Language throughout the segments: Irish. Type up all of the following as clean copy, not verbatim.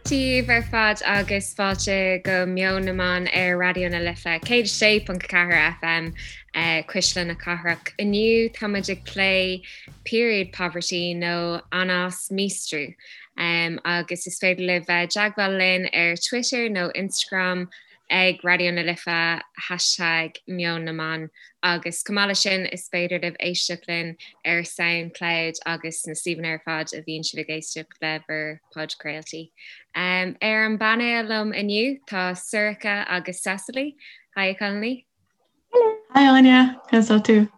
Daoibh ar fad agus fáilte go Meon na mBan ar Raidió na Life 106.4 FM, Cuisle na Cathrach. Inniu tá muid ag plé period poverty nó anás míostrú agus is féidir libh bheith i dteagmháil linn ar Twitter nó Instagram ag Raidió na Life hashtag Meon na mBan agus chomh maith leis sin is féidir libh éisteacht linn ar Soundcloud agus na suíomhanna ar fad a bhíonn sibh ag éisteacht le bhur podchraoltaí. Ar an bpainéal liom inniu tá Sorcha agus Cecily. Hi a chailíní. Hello. Hi Áine, conas tá tú?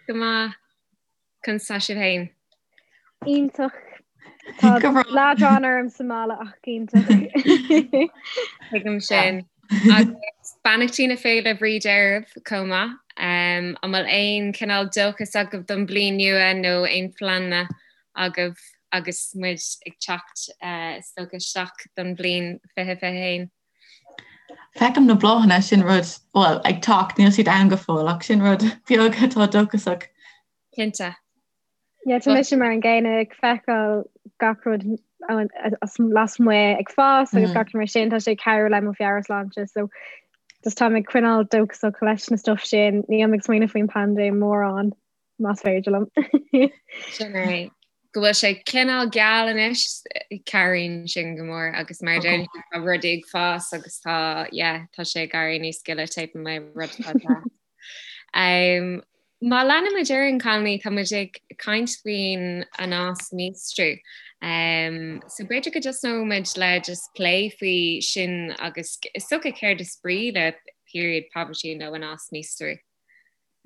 Go maith. Conas tá sibh féin? Iontach. Tá leadrán orm sa mbaile ach iontach. Tuigim sin. Agus beannachtaí na Féile Bríde oraibh chomh maith. An bhfuil aon chineál dóchas agaibh don bhliain nua nó aon phleananna agaibh agus muid ag teacht is dócha isteach don bhliain 2021? Feicim na bláthanna, sin rud, bhuel, ag teacht, níl siad ann go fóill, ach sin rud beag atá dóchasach. Cinnte. Yeah, tá mise mar an gcéanna ag feiceáil gach rud lasmuigh ag fás agus gach rud mar sin, tá sé ag cabhrú le mo mheabhairshláinte, so just táim ag coinneáil dóchasach leis na stuff sin, nílim ag smaoineamh faoin paindéim mórán. más féidir liom. Sin é. Go bhfuil sé cineál geal anois, cabhraíonn sin go mór agus mar a deir tú tá rudaí ag fás agus tá, yeah, tá sé ag éirí níos gile taobh amuigh rud atá deas. Um, má leanaimid ar aghaidh a chailíní, tá muid ag caint faoin anás míostrú. Um, so b'fhéidir go dtosnóidh muid le just plé faoi sin agus is dócha céard is brí le period poverty nó anás míostrú.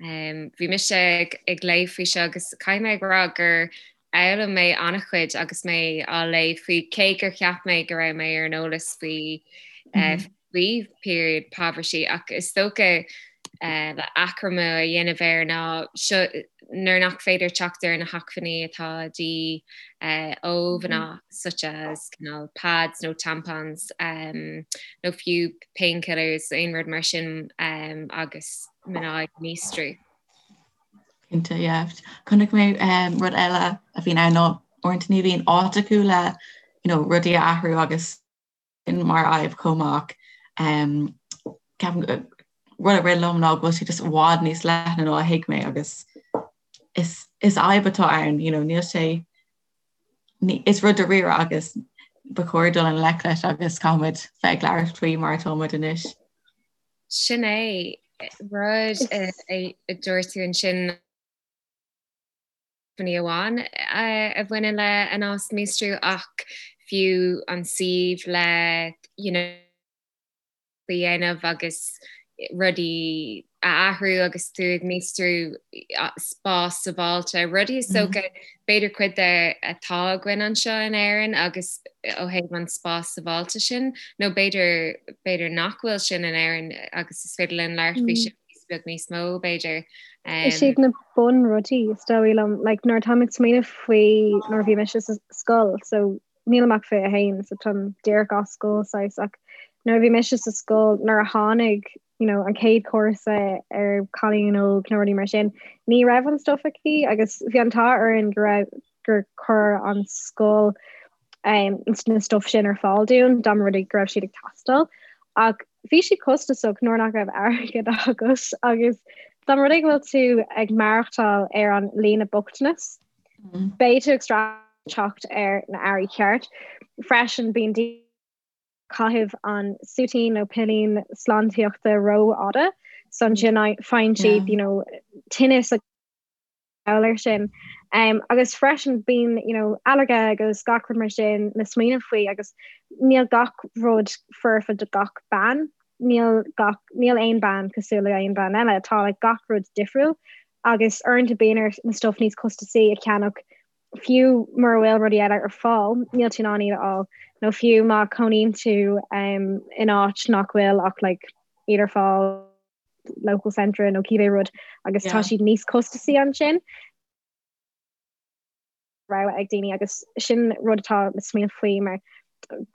Bhí mise ag léamh faoi seo agus caithfidh mé a rá gur fhoghlaim mé an-chuid agus mé á léamh faoi, cé gur cheap mé go raibh mé ar an eolas faoi faoi period poverty ach is dócha le achoimre a dhéanamh air ná seo nuair nach féidir teacht ar na hacmhainní atá de dhíth ó mhná such as cineál pads nó tampons nó fiú painkillers, aon rud mar sin agus mná ag míostrú. Cinnte, yeah. Chonaic mé rud eile a bhíonn ann ná uaireanta ní bhíonn áit acu le you know, rudaí a athrú agus sin mar fhadhb chomh maith. Um, ceapaim rud a rith liom ná go bhfuil sé just i bhfad níos leithne ná a thuig mé agus is, is fhadhb atá ann, you know, níl sé Is rud dáiríre agus ba chóir dul i ngleic leis agus caithfimid bheith ag labhairt faoi mar atá muid anois. Sin é rud a dúirt tú ansin ní amháin a bhaineann le anás míostrú ach fiú an suíomh le you know, a dhéanamh agus rudaí a athrú agus tú ag míostrú spás sábháilte, rudaí is dócha b'fhéidir cuid de atá againn anseo in Éirinn agus ó thaobh an spás sábháilte sin nó b'fhéidir b'fhéidir nach bhfuil sin in Éirinn agus is féidir linn labhairt faoi sin beag níos mó b'fhéidir. Is iad na bunrudaí is dóigh liom, like nuair atáim ag smaoineamh faoi nuair a bhí mise sa scoil so nílim ach 21 so táim díreach as scoil saghas ach nuair a bhí mise sa scoil nuair a tháinig you know, an chéad chúrsa ar cailín óg nó rudaí mar sin ní raibh an stuff aici agus bhí an t-ádh orainn go raibh gur chuir an scoil um, na stuff sin ar fáil dúinn dá mba rud é go raibh siad ag teastáil ach bhí siad costasach nuair nach raibh airgead agat agus dá mba rud é go bhfuil tú ag maireachtáil ar an líne bochtanas Beidh tú ag streachailt teacht ar na earraí ceart. Freisin bíonn daoine ag caitheamh an súitín nó pillín sláintíochta rófhada so ansin faigheann siad you know, tinneas agus gall air sin. Um, agus freisin bíonn you know, ailléirge agus gach rud mar sin le smaoineamh faoi agus níl gach rud foirfe do gach bean. Níl gach níl aon bean cosúil le aon bean eile, tá like, gach rud difriúil agus uaireanta bíonn ort na stuff níos costasaí a cheannach fiú mura bhfuil rudaí eile ar fáil, níl tú in ann iad a fháil, nó fiú má chónaíonn tú um, in áit nach bhfuil ach like, iad ar fáil local centre nó cibé rud agus tá siad níos costasaí ansin. rogha ag daoine agus sin rud atá le smaoineamh faoi mar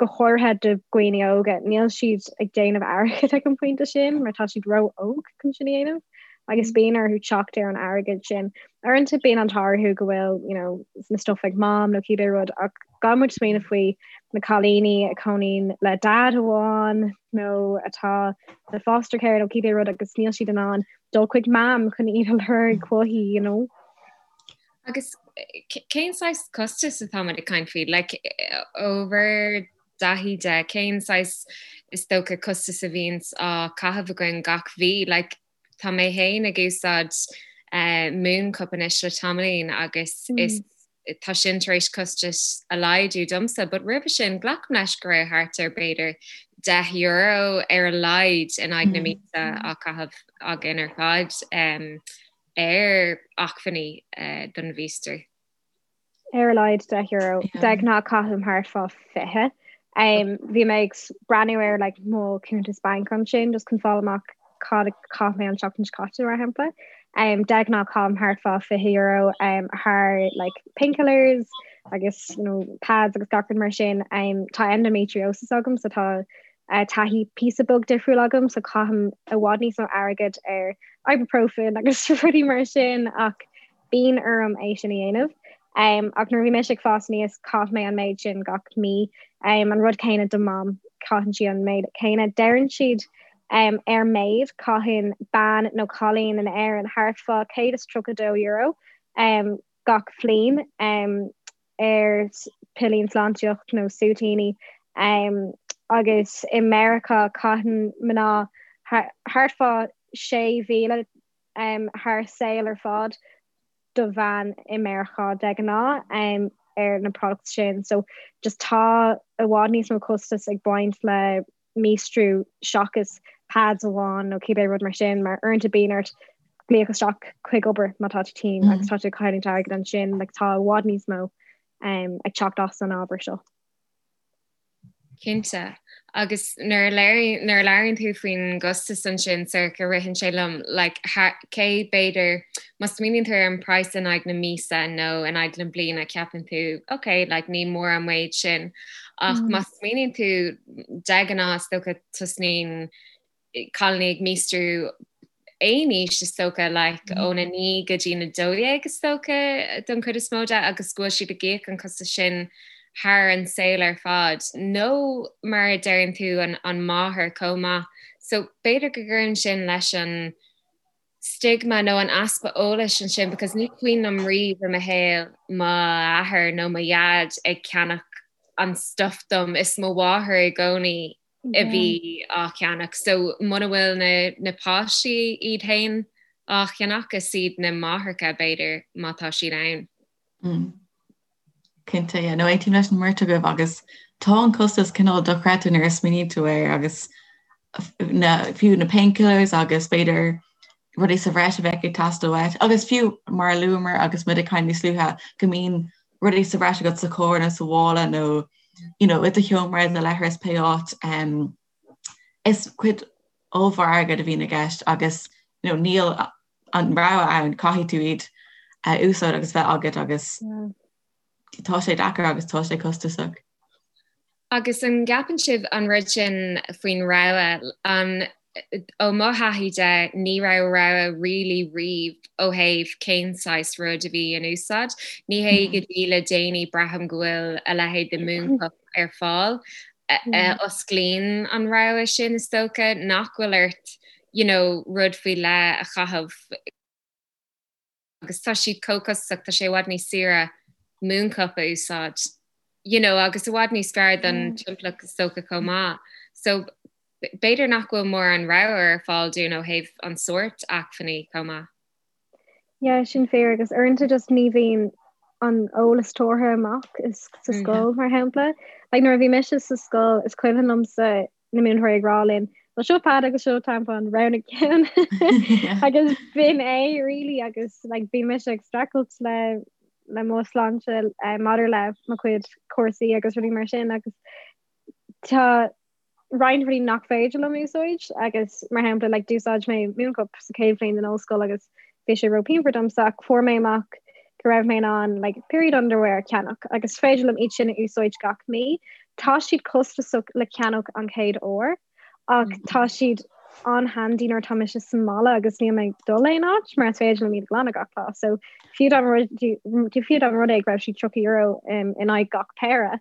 go háirithe do dhaoine óga, níl siad ag déanamh airgead ag an bpointe sin mar tá siad ró-óg chun sin a dhéanamh agus bíonn orthu teacht ar an airgead sin. Uaireanta bíonn an t-ádh orthu go bhfuil you know, na stuff ag mam nó cibé rud ach Gan muid smaoineamh faoi na cailíní a chónaíonn le dad amháin nó atá le foster care nó cibé rud agus níl siad in ann dul chuig mam chun iad a lorg uaithi, you know. Agus cén saghas costas atá muid ag caint faoi? Like, ó bhur dtaithí de, cén saghas is dócha costas a bhíonns á caitheamh againn gach mhí? Like, tá mé féin ag úsáid Mooncup anois le tamaillín agus is tá sin tar éis costais a laghdú domsa, but roimhe sin glacaim leis go raibh thart ar b'fhéidir €10 ar a laghad in aghaidh na míosa á caitheamh againn ar fad ar acmhainní don mhíostrú. Ar a laghad €10. De ghnáth caithim thart fá 20. Bhí mé ag breathnú ar like, mo cuntas banc ansin just chun fáil amach cad a chaith mé an tseachtain seo caite mar shampla. Um, de ghnáth caithim thart fá €20 um, thar like, painkillers agus you know, pads agus gach rud mar sin. Um, tá endometriosis agam so tá uh, taithí píosa beag difriúil agam so caithim i bhfad níos mó airgead ar ibuprofen agus rudaí mar sin ach bíonn orm é sin a dhéanamh. Ach nuair a bhí mise ag fás aníos, chaith mé an méid sin gach mí. An rud céanna do Mham, caitheann sí an méid céanna. Deireann siad ar méid, caitheann bean nó cailín in Éirinn thart fá €132 gach bhliain ar pillín sláintíocht nó súitíní. Agus i Meiriceá caitheann mná thart fá 6,000 thar saol ar fad do bhean i Meiriceá de ghnáth ar na products sin. So just tá i bhfad níos mó costas ag baint le míostrú seachas pads amháin nó cibé rud mar sin mar uaireanta bíonn ort glaoch isteach chuig obair má tá tú tinn agus tá tú ag cailliúint airgead ansin, like tá i bhfad níos mó ag teacht as an ábhar seo. Cinnte. Agus nuair a nuair a labhraíonn tú faoin gcostas ansin, Sorcha, ritheann sé liom, like, cé, b'fhéidir, má smaoiníonn tú ar an praghas in aghaidh na míosa nó in aghaidh na bliana, ceapann tú, ok, like, ní mór an méid sin. Ach má smaoiníonn tú, de ghnáth, is dócha, tosnaíonn cailíní ag míostrú aon aois is dócha, like, óna 9 go dtí na 12 is dócha don chuid is mó de agus go bhfuil siad ag íoc an costas sin thar an saol ar fad nó mar a deireann tú an, an máthair chomh maith. So b'fhéidir go gcuireann sin leis an stigma nó an easpa eolais ansin because ní cuimhin liom riamh i mo shaol m'athair nó mo dhaid ag ceannach an stuff dom is mo mháthair i gcónaí a bhí á cheannach. So muna bhfuil na na páistí iad féin á cheannach, is iad na máithreacha b'fhéidir má tá siad ann. Mm. Cinnte, yeah. No, aontaím leis an mbeirt agaibh agus tá an costas cineál dochreidte nuair a smaoiníonn tú air agus na, fiú na painkillers agus b'fhéidir rudaí sa bhreis a bheadh ag teastáil uait agus fiú mar a luamar agus muid ag caint níos luaithe go mbíonn rudaí sa bhreis agat sa charr nó sa mhála nó you know, i do sheomra i do leithreas pé áit um, is cuid ollmhór airgead a bhíonn i gceist agus you know, níl an rogha ann caithfidh tú iad a úsáid agus bheith agat agus yeah. tá sé deacair agus tá sé costasach. Agus an gceapann sibh an rud sin faoin rogha, an, ó mo thaithí de, ní raibh rogha really riamh ó thaobh cén saghas rud a bhí in úsáid. Ní hé go dtí le déanaí braithim go bhfuil a leithéid de Mooncup ar fáil a osclaíonn an rogha sin is dócha, nach bhfuil ort you know rud faoi leith a chaitheamh. agus tá siad chomh costasach, tá sé i bhfad níos saoire Mooncup a úsáid, you know, agus i bhfad níos fearr don timpeallacht is dócha chomh maith. So b'fhéidir nach bhfuil mórán rogha ar fáil dúinn ó thaobh an sórt acmhainní chomh maith. Yeah, sin fíor agus uaireanta just ní bhíonn an eolas tabhartha amach is sa scoil mar shampla. Like nuair a bhí mise sa scoil is cuimhin liomsa na múinteoirí ag rá linn, Well seo pad agus seo tampon roghnaigh ceann agus b'in é really agus like, bhí mise ag streachailt le le mo shláinte uh, maidir le mo chuid cúrsaí agus rudaí mar sin agus tá roinnt rudaí nach féidir liom úsáid agus mar shampla like, d'úsáid mé Mooncup sa chéad bhliain den ollscoil agus bhí sé ró-phianmhar domsa ach fuair mé amach go raibh mé in ann like, period underwear a cheannach agus féidir liom iad sin a úsáid gach mí. Tá siad costasach le ceannach an chéad uair ach mm -hmm. tá siad an-handy nuair atá mise sa mbaile agus níl mé ag dul aon áit mar is féidir liom iad a ghlanadh gach lá. So fiú dá fiú dá rud é go raibh siad €30 in aghaidh gach péire,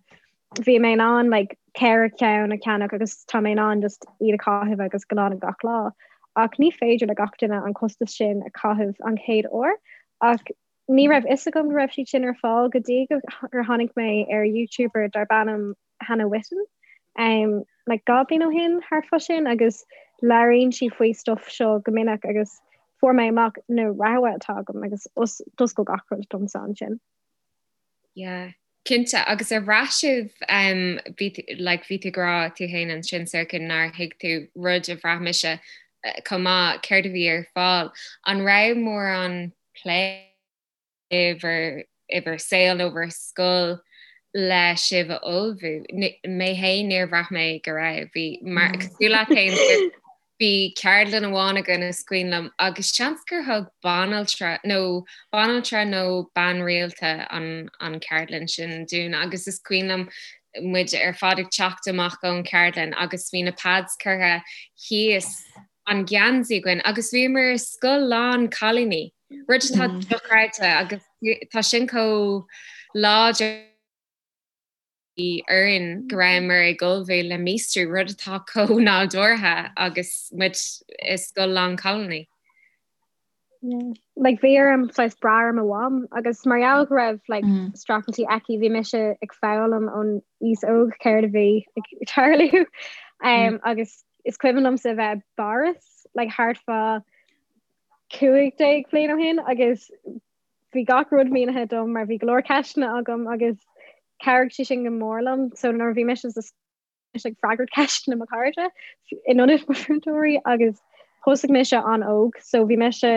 bhí mé in ann like, ceithre cheann a cheannach agus tá mé in ann just iad a chaitheamh agus glanadh gach lá. Ach ní féidir le gach duine an costas sin a chaitheamh an chéad uair ach ní raibh fhios agam go raibh siad sin ar fáil go dtí gur tháinig mé ar YouTuber darb ainm Hannah Witton um, like 2 bliain ó shin thart fá sin agus labhraíonn sí faoi stuff seo go minic agus fuair mé amach na rogha atá agam agus d'oscail gach rud domsa ansin. Yeah. Cinnte, agus ar bhraith sibh um, bhí like, bhí tú ag rá tú féin ansin Sorcha nár thuig tú rud a bhraith mise eh, chomh maith céard a bhí ar fáil. An raibh mórán plé i bhur i bhur saol nó bhur scoil le sibh a ullmhú? Mé féin níor bhraith mé go raibh. Bhí mar cosúil leat féin Bhí ceardlann amháin againn is cuimhin liom agus seans gur thug banaltra nó banaltra nó bean rialta an an ceardlann sin dúinn agus is cuimhin liom muid ar fad ag teacht amach ón cheardlann agus bhí na pads curtha thíos an geansaí againn agus bhíomar i scoil lán cailíní, rud atá dochreidte agus tá sin chomh láidir. orainn go rabhamar ag ullmhú le míostrú, rud atá chomh nádúrtha agus muid i scoil lán cailíní. Yeah. Like bhí orm saghas brath ar mo mham agus mar gheall go raibh like mm. streachailtí aici bhí mise ag foghlaim ón aois óg céard a bhí ag tarlú um, mm. agus is cuimhin liomsa bheith i bPáras like thart fá 15 bliain ó shin agus bhí gach rud mínithe dom mar bhí go leor ceisteanna agam agus chabhraigh sé sin go mór liom. So nuair a bhí mise sa mise ag freagairt ceisteanna mo chairde in ionad mo mhúinteoirí agus thosaigh mise an-óg so bhí mise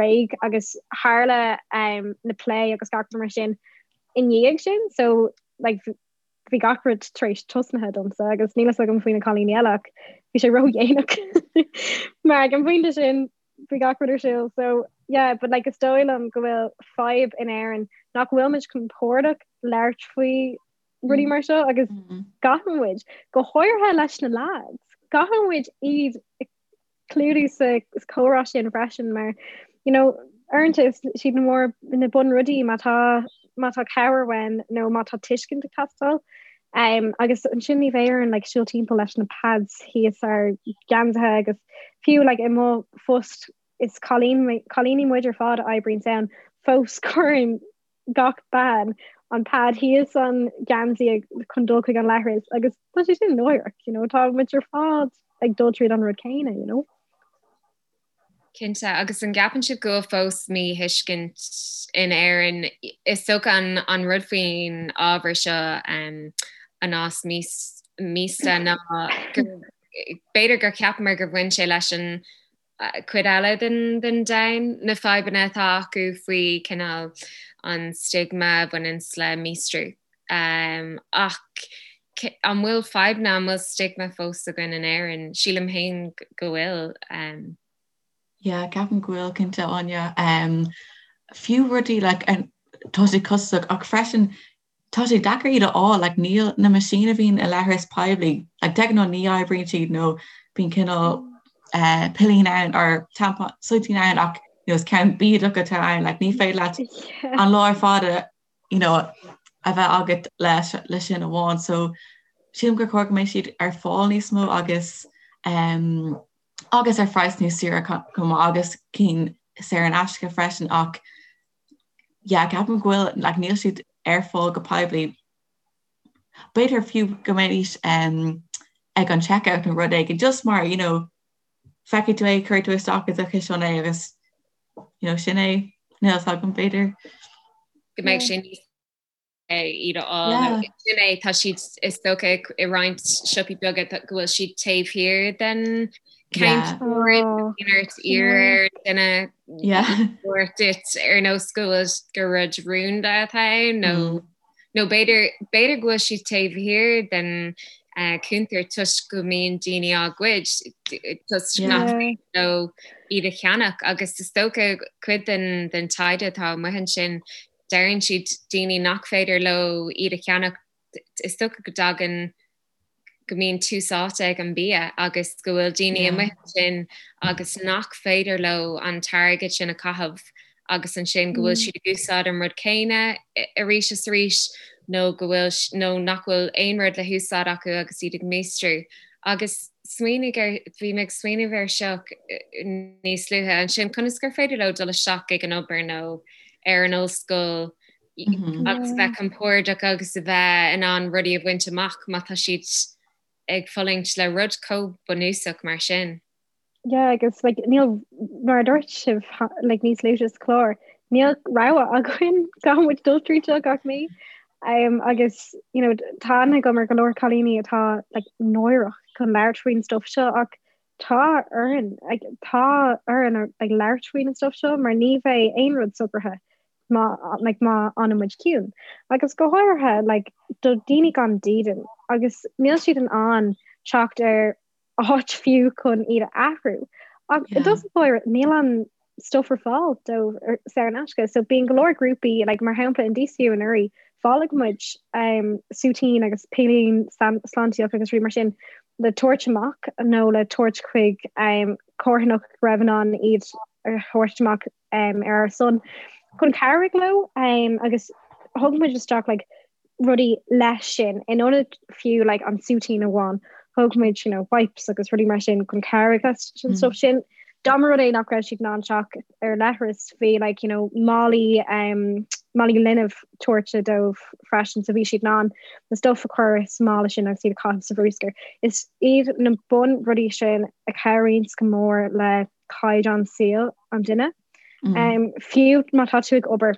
réidh agus tharla um, na plé agus gach rud mar sin i ndiaidh sin so like, bhí gach rud tar éis tosnaithe domsa agus níl fhios agam faoi na cailíní eile ach bhí sé ródhéanach mar ag an bpointe sin bhí gach rud ar siúl so yeah but like is dóigh liom go bhfuil fadhb in Éirinn nach bhfuil muid compordach labhairt faoi rudaí mar seo agus mm. caithfidh muid go háirithe leis na lads caithfidh muid iad clúdú sa chomhrá sin freisin mar you know uaireanta is siad na mór na bunrudaí má tá má tá cabhair uainn nó má tá tuiscint ag teastáil. Um, agus ansin ní bheidh orainn like, siúl timpeall leis na pads thíos ár ngeansaithe agus fiú like, i mo phost is cailíní muid ar fad a oibríonn ann fós cuireann gach bean an pad thíos an geansaí chun dul chuig an leithreas agus tá sé sin náireach, you know, tá muid ar fad ag dul tríd an rud céanna, you know. Cinnte, agus an gceapann sibh go bhfuil fós míthuiscint in Éirinn? Is dócha an an rud faoin ábhar seo anás míosta ná gur b'fhéidir gur cheapamar gur bhain sé leis an cuid eile den den domhan, na fadhbanna atá acu faoi cineál an stigma a bhaineanns le míostrú. Ach an bhfuil fadhbanna, an bhfuil stigma fós againn in Éirinn? Sílim féin go bhfuil. Yeah, ceapaim go bhfuil cinnte, Áine. Fiú rudaí like tá sé costasach ach freisin tá sé deacair iad a fháil, like níl na meaisíní a bhíonn i leithreas poiblí, like de ghnáth ní oibríonn siad nó bíonn cineál uh, pillín ann or tampon suitín ann ach you know, is ceann bídeach atá ann, like ní féidir leat an lá ar fad a you know, a bheith agat leis le sin amháin. So sílim gur chóir go mbeidh siad ar fáil níos mó agus um, agus ar phraghas níos saoire chomh maith agus cinn saor in aisce freisin ach yeah, ceapaim go bhfuil like, níl siad ar fáil go poiblí. B'fhéidir fiú go mbeidís um, ag an checkout nó rud éigin just mar you know, feicfidh tú é cuirfidh tú isteach i do chiseán é agus you know, sin é níl a fhios agam b'fhéidir. Go mbeidh sé níos iad a fháil sin é tá siad is dócha i roinnt siopaí beaga go bhfuil siad taobh thiar den ort iarr ar duine duit ar nós go bhfuil gur rud rúnda atá ann nó mm. Nó b'fhéidir, b'fhéidir go bhfuil siad taobh thiar den cuntar toisc go mbíonn daoine á ggoid, toisc nach féidir leo iad a cheannach. Agus is dócha cuid den, den taighde atá amuigh ansin, deireann siad daoine nach féidir leo iad a cheannach, is dócha go dtagann. go mbíonn tús áite ag an bia agus go bhfuil daoine amuigh ansin agus nach féidir leo an t-airgead sin a chaitheamh agus ansin go bhfuil siad ag úsáid an rud céanna arís is arís nó go bhfuil nó nach bhfuil aon rud le húsáid acu agus iad ag míostrú. Agus smaoinigh ar, bhí mé ag smaoineamh air seo níos luaithe ansin, conas gur féidir leo dul isteach ag an obair nó ar an ollscoil agus a bheith compordach agus a bheith in ann rudaí a bhaint amach má tá siad ag fulaingt le rud chomh bunúsach mar sin. Yeah, agus like, níl mar a dúirt sibh like, níos luaithe sa chlár, níl rogha againn caithfidh muid dul tríd seo gach mí. Um, agus you know, tá aithne agam ar go leor cailíní atá like, náireach chun labhairt faoin stuff seo ach tá orainn like, tá orainn like, labhairt faoin stuff seo mar ní bheidh aon rud socraithe má like, má fhanann muid ciúin. Agus go háirithe like, do daoine gan dídean agus níl siad in ann teacht ar áit fiú chun iad a athrú. Ach i dtús báire níl an stuff ar fáil dóibh saor in aisce. So bíonn go leor grúpaí like, mar shampla in DCU anuraidh bhailigh muid um, súitín agus pillín sláintíoch agus rudaí mar sin le tabhairt amach nó le tabhairt chuig um, carthanacht go raibh in ann iad a thabhairt amach um, ar ár son chun cabhrú leo um, agus thug muid isteach like, rudaí leis sin in ionad fiú like, an súitín amháin thug muid you know, wipes agus rudaí mar sin chun cabhrú leis an stuff sin. Dá mba rud é nach raibh siad in ann teacht ar leithreas bhí like, you know, málaí um, málaí linbh tabhairt dóibh freisin so bhí siad in ann na stuff a chur sa mála sin agus iad a chaitheamh sa bhruscar. Is iad na bun rudaí sin a chabhraíonn go mór le caighdeán saoil an duine. Mm. Um, fiú má tá tú ag obair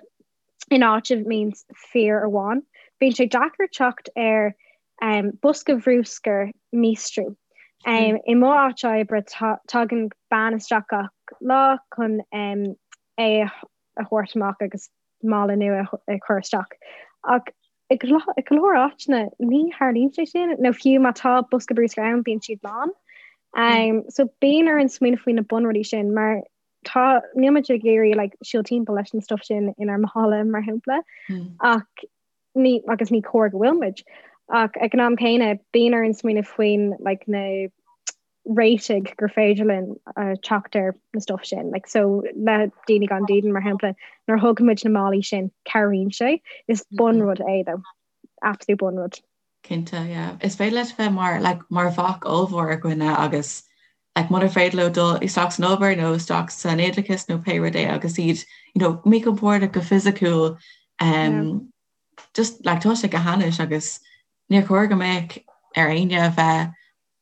in áit a mbíonn fir amháin, bíonn sé deacair teacht ar um, bosca bhrúscair míostrú. Um, I mo áit oibre tagann bean isteach gach lá chun um, é a thabhairt amach agus mála nua a chur isteach. Ach i go leor áiteanna ní tharlaíonn sé sin, nó fiú má tá bosca brúscair ann bíonn siad lán. Um, so bíonn orainn smaoineamh faoi na bunrudaí sin mar tá níl muid ag iarraidh like, siúl timpeall leis an stuff sin inár mála mar shampla mm. ach ní agus ní cóir go bhfuil muid. Ach ag an am céanna bíonn orainn smaoineamh faoin like, na réitigh gur féidir linn uh, teacht ar na stuff sin. Like, so le daoine gan dídean mar shampla nuair a thugann muid na málaí sin cabhraíonn sé is mm-hmm. bunrud é though. Absolute bunrud. Cinnte, yeah. Is féidir leis bheith mar like, mar bhac ollmhór ar dhuine agus like, munar féidir leo dul isteach san obair nó isteach san oideachas nó pé rud é agus iad you know, míchompordach go fisiciúil um, yeah. just like, tá sé go hainnis agus níor chóir go mbeadh ar éinne a bheith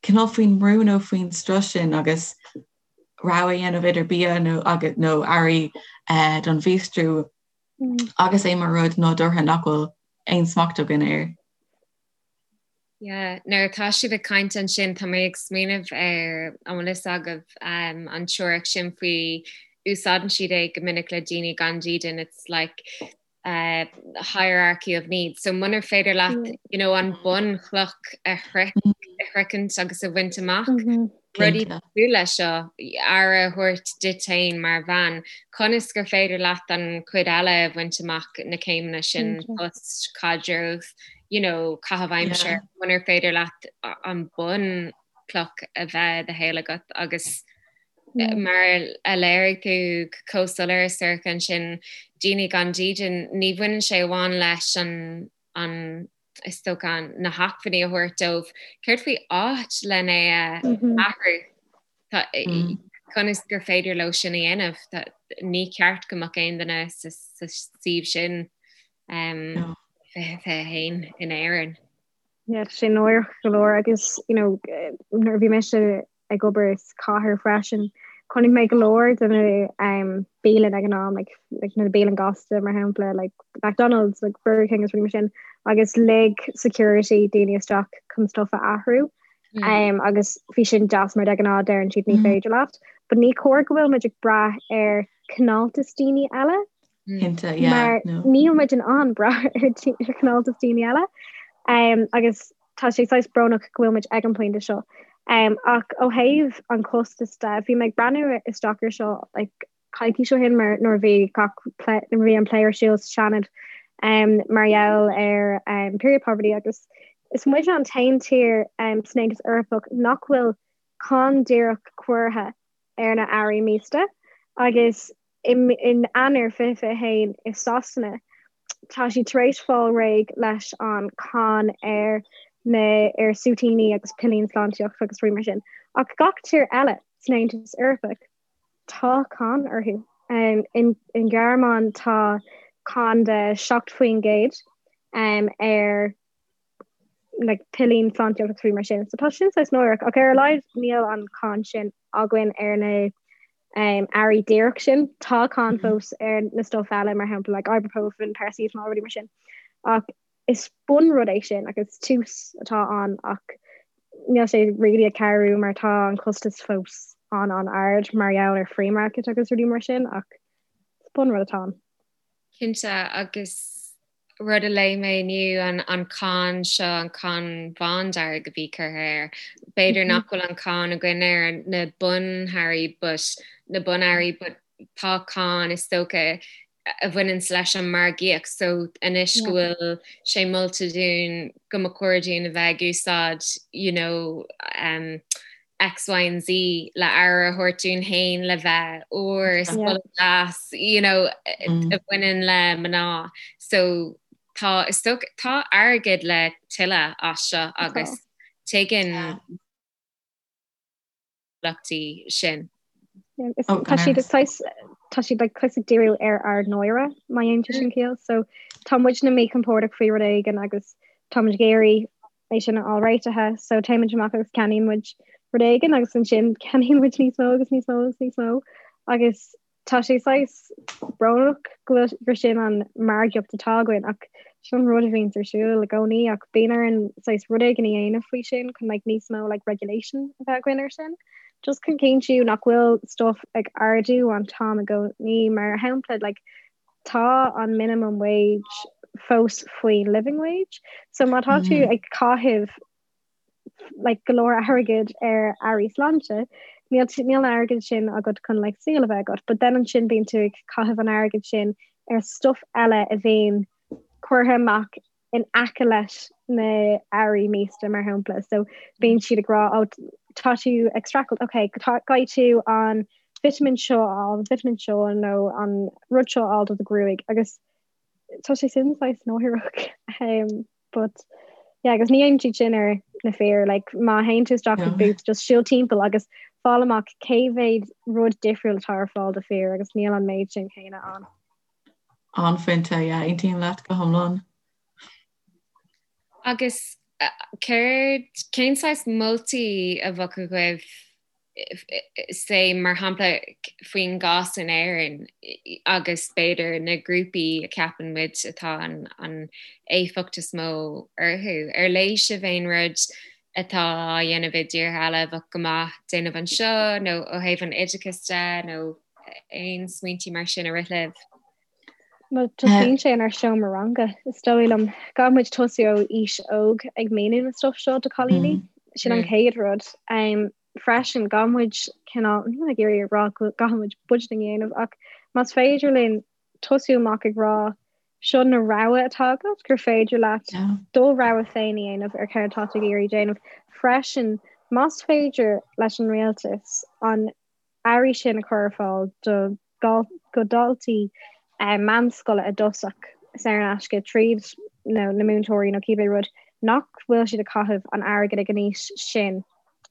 cineál faoin mbrú nó faoin strus sin agus rogha a dhéanamh idir bia nó agus nó earraí eh, don mhíostrú mm. agus é mar rud nádúrtha nach bhfuil aon smacht againn air. Yeah, nuair atá sibh ag caint ansin tá mé ag smaoineamh ar an bhfuil fhios agaibh um, an teoiric sin faoi úsáideann siad é go minic le daoine gan dídean it's like uh, hierarchy of needs. So munar féidir leat mm. you know, an bunchloch a shroichint agus a bhaint amach, mm -hmm. rudaí cosúil leis seo aire a thabhairt duit féin mar bhean, conas gur féidir leat an chuid eile a bhaint amach na céimeanna sin post caidreamh, you know, caitheamh aimsire, munar féidir leat an bunchloch a bheith i do shaol agat agus Mar a léirigh tú chomh soiléir Sorcha ansin, daoine gan dídean, ní bhaineann sé amháin leis an, an, is dócha, na hacmhainní a thabhairt dóibh. Céard faoi áit len é a athrú? Tá, conas gur féidir leo sin a dhéanamh? Ní ceart go mbeadh aon duine sa suíomh sin 2021 in Éirinn. Yeah, tá sé náireach go leor agus you know, nuair a bhí mise ag obair sa chathair freisin. Chonaic mé go leor de na um, bialann ag an am, like, like na bialann gasta mar shampla, like McDonald's, like Burger King is rudaí mar sin, agus lig security daoine isteach chun stuff a athrú. Mm. Um, agus bhí sin deas mar de ghnáth deireann siad ní mm. féidir leat. But ní cóir go bhfuil muid ag brath ar cineáltas daoine eile. Cinnte, yeah, Mar no. níl muid in ann brath ar ar chineáltas daoine eile. Um, agus tá sé saghas brónach go bhfuil muid ag an pointe seo. Um, ach ó thaobh an costas de, bhí mé ag breathnú isteach ar seo like, coicís ó shin mar nuair a bhí gach plé, nuair a bhí an plé ar siúl sa Seanad um, mar gheall ar um, period poverty agus Is muid an t-aon tír san Aontas Eorpach nach bhfuil cáin díreach curtha ar na earraí míosta agus in Eanáir 2021 i Sasana tá siad tar éis fáil réidh leis an cáin ar na ar súitíní agus pillín sláintíochta agus rudaí mar sin. Ach gach tír eile san Aontas Eorpach tá cáin orthu. In in Gearmáin tá cáin de 7% ar like pillín sláintíochta agus rudaí mar sin. So tá sin saghas náireach ach ar a laghad níl an cáin sin againn ar na um, earraí díreach sin. Tá cáin fós ar na stuff eile mar shampla like ibuprofen, paracetamol, rudaí mar sin. Ach is bunrud é sin agus tús atá ann ach níl sé really ag cabhrú mar tá an costas fós an an-ard mar gheall ar free market agus rudaí mar sin ach is bunrud atá ann. Cinnte agus rud a léigh mé inniu an an cáin seo an cáin bhándearg a bhí curtha air. B'fhéidir nach bhfuil an cáin againn ar na bunearraí but na bunearraí but tá cáin is dócha a bhaineanns leis an margaíocht so anois go bhfuil sé molta dúinn go mba chóir dúinn a bheith ag úsáid you know um, X, Y and Z le aire a thabhairt dúinn féin le bheith úr is deas you know mm. a bhaineann le mná so tá is dócha tá airgead le tuilleamh as seo agus tuigeann luchtaí sin. Tá siad tá siad like saghas ag díriú ar ár náire má dhéanann sé sin ciall. So tá muidne míchompordach faoi rud éigin agus tá muid ag iarraidh é sin a fháil réitithe, so téimid amach agus ceannaíonn muid rud éigin agus ansin ceannaíonn muid níos mó agus níos mó agus níos mó agus Tá sé saghas brónach go bhfuil gur sin an margaíocht atá againn ach sin an rud a bhíonns ar siúl i gcónaí ach bíonn orainn saghas rud éigin a dhéanamh faoi sin chun like níos mó like regulation a bheith againn ar sin. Just chun cinntiú nach bhfuil stuff ag ardú an t-am i gcónaí mar shampla like tá an minimum wage fós faoin living wage so má tá tú ag caitheamh like go leor airgid ar earraí sláinte, níl níl an airgead sin agat chun like saol a bheith agat, but then ansin bíonn tú ag caitheamh an airgid sin ar stuff eile a bhíonn curtha amach in aice leis na earraí míosta mar shampla. So bíonn siad ag rá oh tá tú ag streachailt, ok caithfidh tú an vitamin seo a fháil, an vitamin seo nó an rud seo a fháil do do ghruaig agus tá sé sin saghas náireach. Um, But yeah, agus ní dhéanann siad sin ar na fir, like má théann tú isteach go Boots, just siúl timpeall agus fáil amach cé mhéad rud difriúil atá ar fáil do fir agus níl an méid sin céanna ann. An-phointe, yeah, aontaím leat go hiomlán. Agus céard, cén saghas moltaí a bheadh agaibh say mar shampla faoin gcás in Éirinn agus b'fhéidir na grúpaí a cheapann muid atá an, an éifeacht is mó orthu. Ar léigh sibh aon rud atá á dhéanamh i dtíortha eile a bheadh go maith déanamh anseo nó ó thaobh an oideachais de nó aon smaointí mar sin a rith libh? Well, tosaíonn sé inár seomra ranga, is dóigh liom. Caithfidh muid tosú ó aois óg ag míniú na stuff seo do cailíní. Sin an chéad rud. Um, freisin, caithfidh muid cineál, níl mé ag iarraidh a rá go gcaithfidh muid budgeting a dhéanamh, ach más féidir linn tosú amach ag rá seo na rogha atá agat, gur féidir leat do rogha féin a dhéanamh ar céard atá tú ag iarraidh déanamh. Freisin, más féidir leis an rialtas an earraí sin a chur ar fáil do go daltaí meánscoile i dtosach saor in aisce tríd na múinteoirí nó cibé rud nach bhfuil siad ag caitheamh an airgid ag an aois sin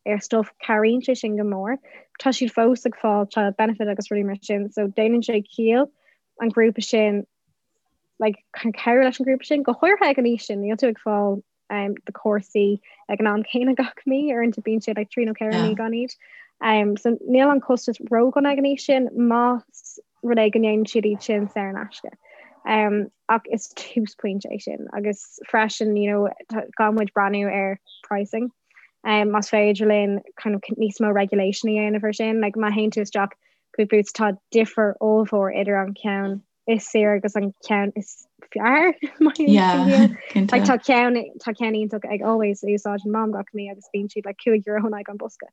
ar stuff cabhraíonn sé sin go mór. Tá siad fós ag fáil child benefit agus rudaí mar sin so déanann sé ciall an grúpa sin like cabhrú leis an grúpa sin go háirithe ag an aois sin níl tú ag fáil um, do chúrsaí ag an am céanna gach mí uaireanta bíonn sé like, 3 nó 4 mí gan iad. Um, so níl an costas ródhona ag an aois sin más rud é go ndéanann siad iad sin saor in aisce. Um, ach is túsphointe é sin agus freisin you know, caithfidh muid breathnú ar pricing. Um, más féidir linn kind of níos mó regulation a dhéanamh ar sin, like, má théann tú isteach go Boots tá difear ollmhór idir an ceann is saoire agus an ceann is fearr Like tá ceann tá ceann iontach ag Always a úsáideann Mam gach mí agus bíonn siad like 5 euro in aghaidh an bosca.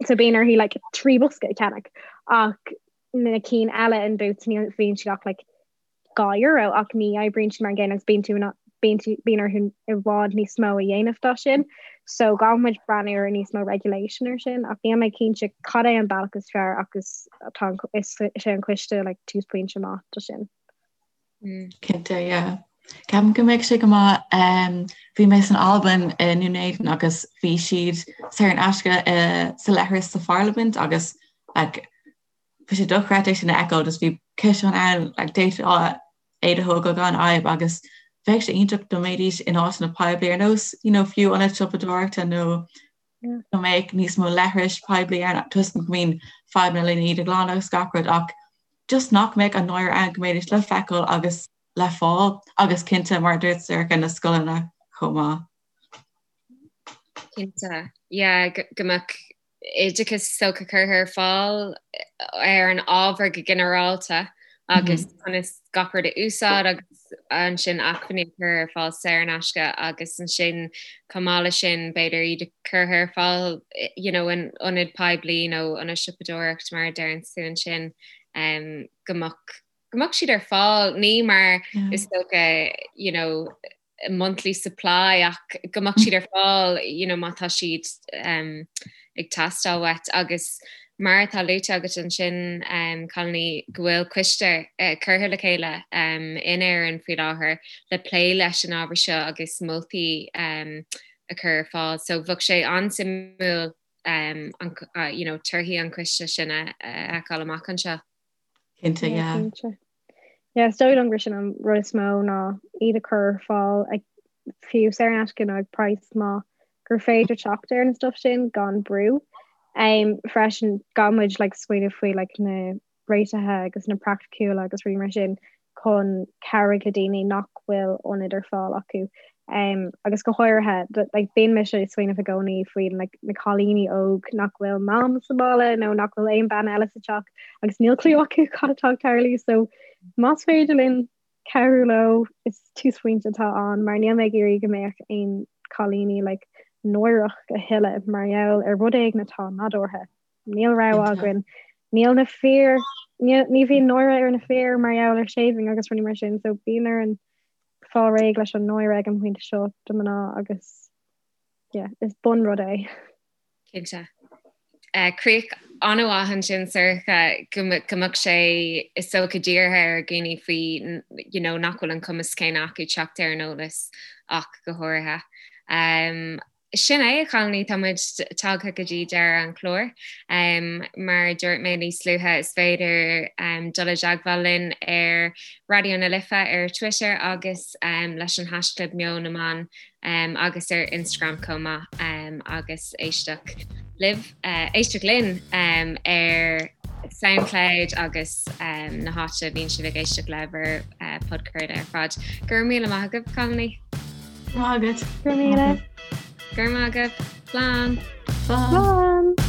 So bíonn uirthi like 3 bosca a cheannach ach na cinn eile in Boots ní bhíonn siad ach like 2 euro ach ní oibríonn siad mar an gcéanna agus bíonn tú in. Bíonn orthu i bhfad níos mó a dhéanamh dá sin. So caithfidh muid breathnú ar níos mó regulation ar sin ach níl mé cinnte cad é an bealach is fearr ach is tá is é an coiste like túsphointe maith do sin. Cinnte, yeah. Ceapaim go mbeadh sé go maith um, bhí mé san Albain i nDún Éideann agus bhí siad saor in aisce uh, sa leithreas sa pharlaimint agus like, bhí sé dochreidte sin a fheiceáil just bhí ciseán ann like, d'fhéadfá iad a thógáil gan fhadhb agus bheadh sé iontach dá mbeidís in áiteanna poiblí ar nós you know, fiú ionad siopadóireachta nó go mbeadh níos mó leithris poiblí ann toisc go mbíonn fadhbanna lena iad a ghlanadh agus gach rud ach just nach mbeadh an náire ann go mbeidís le feiceáil agus le fáil agus cinnte mar a dúirt Sorcha na scoileanna chomh maith. Cinnte, yeah, go mbeadh oideachas is dócha curtha ar fáil ar an ábhar go ginearálta agus conas gach rud a úsáid agus ansin acmhainní a chur ar fáil saor in aisce agus ansin chomh maith leis sin b'fhéidir iad a chur ar fáil you know, in ionad poiblí nó ionad siopadóireacht mar a deireann tú ansin um, go mbeadh go mbeadh siad ar fáil ní mar is dócha you know, monthly supply ach go mbeadh siad ar fáil you know, má tá siad um, ag teastáil uait agus mar atá luaite agat ansin um, cailíní go bhfuil coiste uh, curtha le chéile um, in Éirinn faoi láthair le plé leis an ábhar seo agus moltaí um, a chur ar fáil. So bheadh sé an-suimiúil um, an, uh, you know, torthaí an choiste sin a fheiceáil amach anseo. Cinnte, yeah. Cinnte. Yeah, is dóigh liom gur sin an rud is mó ná iad a chur ar fáil ag fiú saor in aisce nó ag praghas maith gur féidir teacht ar an stuff sin gan brú. Um, freisin caithfidh muid like, smaoineamh faoi like, na réitithe agus na praiticiúla agus rudaí mar sin chun cabhrú le daoine nach bhfuil ionad ar fáil acu. Um, agus go háirithe like, bíonn mise ag smaoineamh i gcónaí faoi like, na cailíní óg nach bhfuil mam sa bhaile nó nach bhfuil aon bean eile sa teach agus níl clue acu cad atá ag tarlú so más féidir linn cabhrú leo is túsphointe atá ann mar níl mé ag iarraidh go mbeadh aon cailíní like, náireach a thuilleadh mar gheall ar rud éigin atá nádúrtha. Níl rogha againn. Níl na fir ní bhíonn náire ar na fir mar gheall ar shaving agus rudaí mar sin so bíonn orainn fáil réidh leis an náire ag an bpointe seo do mná agus yeah, is bunrud é. Cinnte. Uh, críoch an-mhaith ansin Sorcha go mbeadh sé is dócha dírithe ar dhaoine faoi you know, nach bhfuil an cumas céanna acu teacht ar an eolas ach go háirithe. Um, Sin é, a chailíní, tá muid tagtha go dtí deireadh an chláir. Mar a dúirt mé níos luaithe, is féidir dul i dteagmháil linn ar Raidió na Life ar Twitter agus leis an haischlib Meon na mBan agus ar Instagram chomh maith agus éisteacht libh, éisteacht linn ar Soundcloud agus na háite a bhíonn sibh ag éisteacht le bhur podchraoladh ar fad. Go raibh míle maith agaibh, cailíní. Maith agat. Go raibh míle. Go raibh maith agaibh. Slán. Slán.